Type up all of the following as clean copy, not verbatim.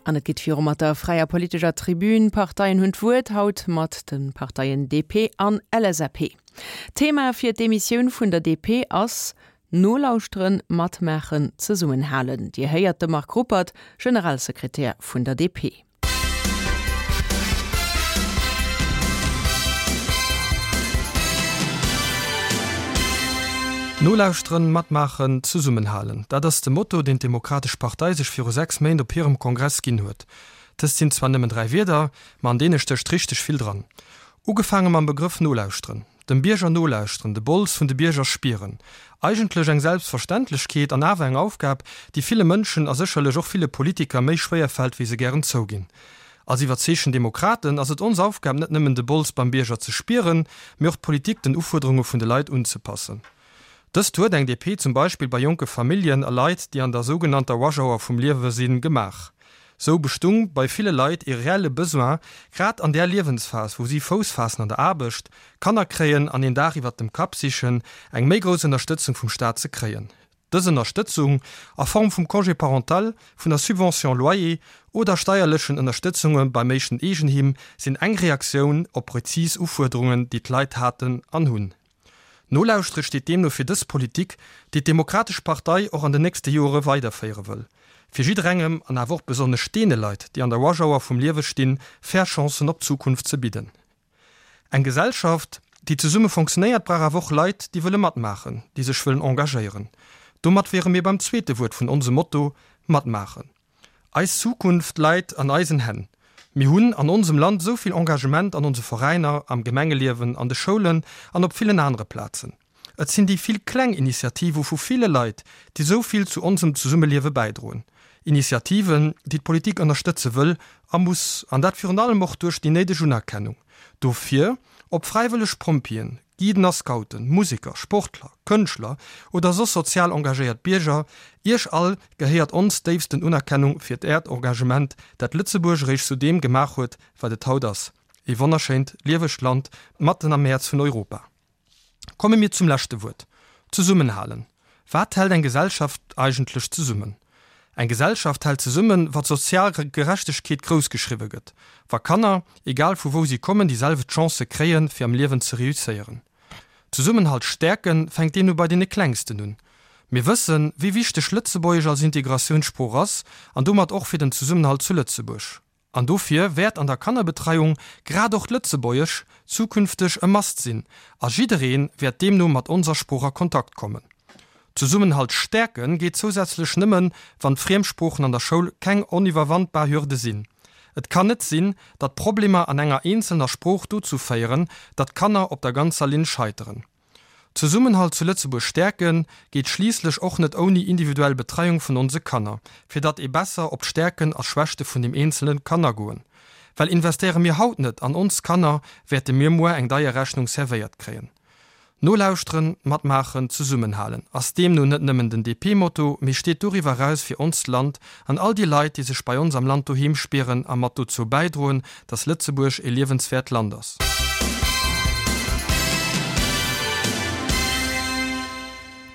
An et geet viru mat der fräier politescher Tribün. D'Parteien hunn d'Wuert, haut mat de Parteien DP an LSAP. Thema fir d'Emissioun vun der DP ass Nolauschteren, matmaachen, zesummenhalen. Dir héiert de Marc Ruppert, Generalsekretär vun der DP. Nolauschteren, matmaachen, zesummenhalen, dat ass de Motto, deen d'Demokratesch Partei sech viru 6 Méint op hirem Kongress ginn huet. Dëst sinn zwar nëmmen 3 Wierder, ma an deene stécht richteg vill dran. Ugefaange mam Begrëff nolauschteren. Dem Bierger nolauschteren, de Bols vun de Bierger spieren. Eigentlech eng Selbstverständlechkeet an awer eng Aufgab, déi ville Mënschen a sécherlech och ville Politiker méi schwéier fält, wéi se gären zouginn. Als iwwerzeegten Demokraten ass et ons Aufgab, net nëmmen de Bols beim Bierger ze spieren, mee och d'Politik den Ufuerderunge vun de Leit unzepassen. Dëst huet eng DP zum Beispill bei jonke Familljen a Leit, déi an der sougenannter Rush Hour vum Liewe sinn, gemaach. Sou bestung bei ville Leit ee reelle Besoin, grad an där Liewensphas, wou si Fouss faassen an der Aarbecht, Kanner kréien an een Daach iwwert dem Kapp sichen, eng méi grouss Ënnerstëtzung vum Staat ze kréien. Dës Ënnerstëtzung, a Form vum Congé parental, vun der Subvention loyer oder steierlechen Ënnerstëtzunge beim éischten Eegenheem, sinn eng Reaktioun op prezis Ufuerderungen, déi d'Leit haten an hunn. Nolauschtere steet deemno fir dës Politik, déi d'Demokratesch Partei och an den nächste Joere weiderféiere wëll, fir jidderengem, an awer och besonnesch deene Leit, déi an der Rush Hour vum Liewe stinn, fair Chancen op d'Zukunft ze bidden. Eng Gesellschaft, déi zesumme fonctionnéiert, brauch awer och Leit, déi wëlle matmaachen, déi sech wëllen engagéieren. Domat wiere mir beim zweete Wuert vun onsem Motto, Matmaachen. Eis Zukunft läit an eisen Hänn. Mir hunn an onsem Land esou vill Engagement an onse Veräiner, am Gemengeliewen, an de Schoulen an op villen anere Plazen. Et sinn déi vill kleng Initiativë vu ville Leit, déi esou vill zu onsem Zesummeliewe bäidroen. Initiativen, déi d'Politik ënnerstëtze wëll a muss, an dat virun allem och duerch déi néideg Unerkennung dofir. Ob fräiwëlleg Pompjeeën, Guiden a Scouten, Museker, Sportler, Kënschtler oder soss sozial engagéiert Bierger, Iech all gehéiert ons déifsten Unerkennung fir Äert Engagement, dat Lëtzebuerg eréischt zu deem gemaach huet, wat et haut ass, ee wonnerschéint, liewegt Land matten am Häerz vun Europa. Komme mir zum leschte Wuert, Zesummenhalen. Wat hält eng Gesellschaft eigentlech zesummen? Eng Gesellschaft hält zesummen, wa sozial Gerechtegkeet grouss geschriwwe gëtt, wa Kanner, egal vu wou si kommen, déi selwecht Chancë kréien, fir am Liewen ze reusséieren. Zesummenhalt stäerken fänkt deemno bei deene Klengsten un. Mir wëssen, wéi wichteg Lëtzebuergesch als Integratiounssprooch ass an domat och fir den Zesummenhalt zu Lëtzebuerg. An dofir wäert an der Kannerbetreiung grad och d'Lëtzebuergesch zukünfteg e Must sinn a jidderee wäert deemno mat onser Sprooch a Kontakt kommen. Zesummenhalt stäerke geet zousätzlech nëmmen, wann d'Friemsproochen an der Schoul keng oniwwerwandbar Hürde sinn. Et kann net sinn, datt Problemer an enger eenzelner Sprooch dozou féieren, datt Kanner op der ganzer Linn scheiteren. Zesummenhalt zu Lëtzebuerg stäerken, geet schliisslech och net ouni individuell Betreiung vun onse Kanner, fir datt ee besser op d'Stäerken a Schwächte vun dem Eenzelen kann agoen. Well investéiere mir haut net an ons Kanner, wäerte mir muer eng deier Rechnung servéiert kréien. Nolauschteren, matmaachen, zesummenhalen ass deemno net nëmmen den DP-Motto, mee steet doriwwer eraus fir onst Land an all déi Leit, déi sech bei ons am Land doheem spieren a mat dozou bäidroen, dass Lëtzebuerg e liewenswäert Land ass.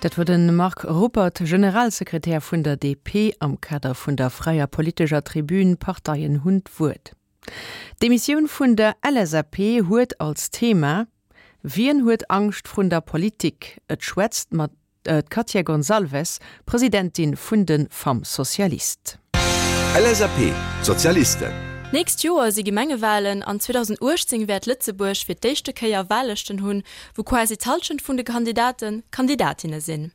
Dat wor de Marc Ruppert, Generalsekretär vun der DP, am Kader vun der fräier politescher Tribün Parteien hunn d'Wuert. D'Emissioun vun der LSAP huet als Thema Wien huet Angscht vrun der Politik? Et schwätzt mat. D'Katia Gonçalves, Presidentin vun de Femmes Socialistes. LSAP, D'Sozialisten. D'nächst Joer si Gemengewalen an 2018 wäert Lëtzebuerg fir d'éischte Kéier Wahllëschten hunn, wou quasi d'Hallschent vun de Kandidaten Kandidatinne sinn.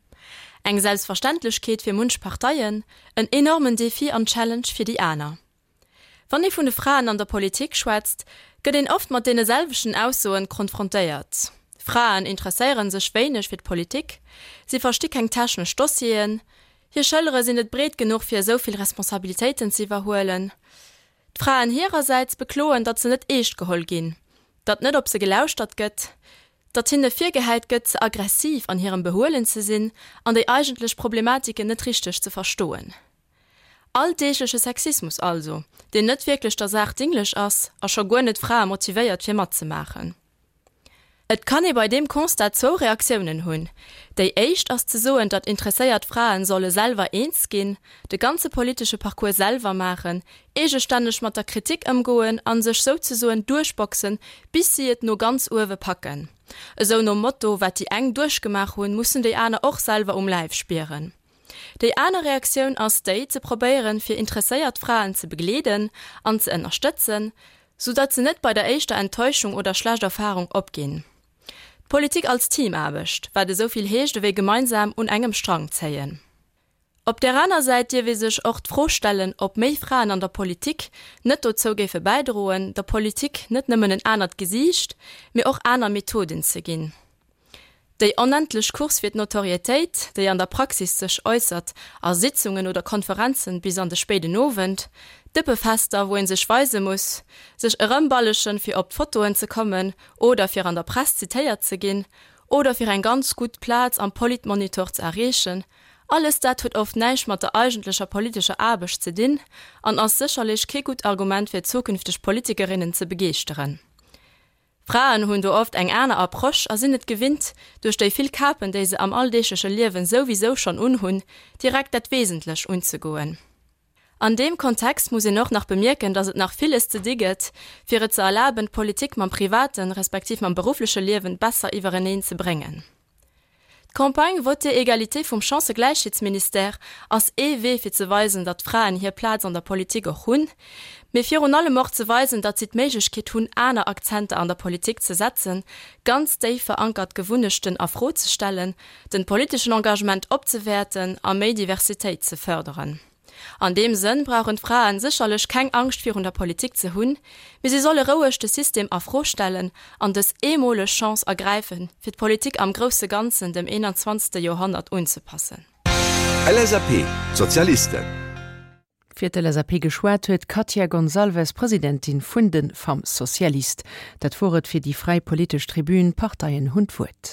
Eng Selbstverständlechkeet fir munch Parteien, en enormen Defi an Challenge fir déi aner. Wann ee vun de Fraen an der Politik schwätzt, gëtt een oft mat deene selwechten Aussoen konfrontéiert, Fraen interesséiere sech wéineg fir d'Politik, si versti keng technesch Dossieren, hir Schëllere sinn net breet genuch fir esou vill Responsabilitéiten ze iwwerhuelen. D'Fraen hirersäits bekloen, datt se net eescht geholl ginn, datt net op se gelauschtert gëtt, datt hinne virgehäit gëtt, ze aggressiv an hirem Behuelen ze sinn an déi eigentlech Problematiken net richteg ze verstoen. Alldeegleche Sexismus also, deen net wierklech der Saach dinglech ass a scho guer net d'Frae motivéiert fir matzemaachen. Et kann ee bei deem Constat zwou Reaktiounen hunn. Déi éischt ass ze soen, datt interesséiert Fraen solle selwer eens ginn, de ganze politesche Parcours selwer maachen, eegestänneg mat der Kritik ëmgoen a sech souzesoen duerchboxen, bis si et no ganz uewe packen. Esou nom Motto, wat déi eng duerchgemaach hunn, mussen déi aner och selwer um Läif spieren. Déi aner Reaktioun ass déi, ze probéieren, fir interesséiert Fraen ze begleeden an ze ënnerstëtzen, sou datt se net bei der éischter Enttäuschung oder schlecht Erfahrung opginn. D'Politik als Teamaarbecht, wat esou vill heescht ewéi gemeinsam un engem Strang zéien. Op där aner Säit dierf ee sech och d'Fro stellen, ob méi Fraen an der Politik net dozou géife bäidroen, der Politik net nëmmen en anert Gesiicht, mee och aner Methoden ze ginn. Déi onendlech Course fir d'Notorietéit, déi an der Praxis sech äussert a Sitzungen oder Konferenzen bis an de spéiden Owend, Dëppefester, wou ee sech weise muss, sech erëmballegen, fir op d'Fotoen ze kommen oder fir an der Press zitéiert ze ginn oder fir eng ganz gutt Plaz am Politmonitor ze erreechen, alles dat huet oft näischt mat der eigentlecher politescher Aarbecht ze dinn an ass sécherlech kee gutt Argument fir zukünfteg Politikerinnen ze begeeschteren. Fraen hunn do oft eng aner Approche a sinn et gewinnt, duerch déi vill Kapen, déi se am alldeegleche Liewen souwisou schonn unhunn, direkt dat Wesentlech unzegoen. An deem Kontext muss een och nach bemierken, datt et nach villes ze di gëtt, fir et ze erlaben, d'Politik mam privaten, respektiv mam beruffleche Liewen besser iwwereneen ze bréngen. D'Campagne Votez Égalité vum Chancëgläichheetsministère ass ee Wee fir ze weisen, datt d'Fraen hir Plaz an der Politik och hunn, mee virun allem och ze weisen, datt si d'Méiglechkeet hunn aner Akzenter an der Politik ze setzen, ganz déif verankert Gewunnechten a Fro ze stellen, den politeschen Engagement opzewäerten a méi Diversitéit ze fërderen. An deem Sënn brauchen d'Fraen sécherlech keng Angscht virun der Politik ze hunn, mee si solle roueg de System a Fro stellen an dës eemoleg Chance ergräifen, fir d'Politik am grousse Ganzen dem 21. Joerhonnert unzepassen. LSAP, D'Sozialisten. Fir d'LSAP geschwat huet d'Katia Gonçalves, Presidentin vun de Femmes Socialistes. Dat wor et fir déi fräi politesch Tribün. D'Parteien hunn d'Wuert.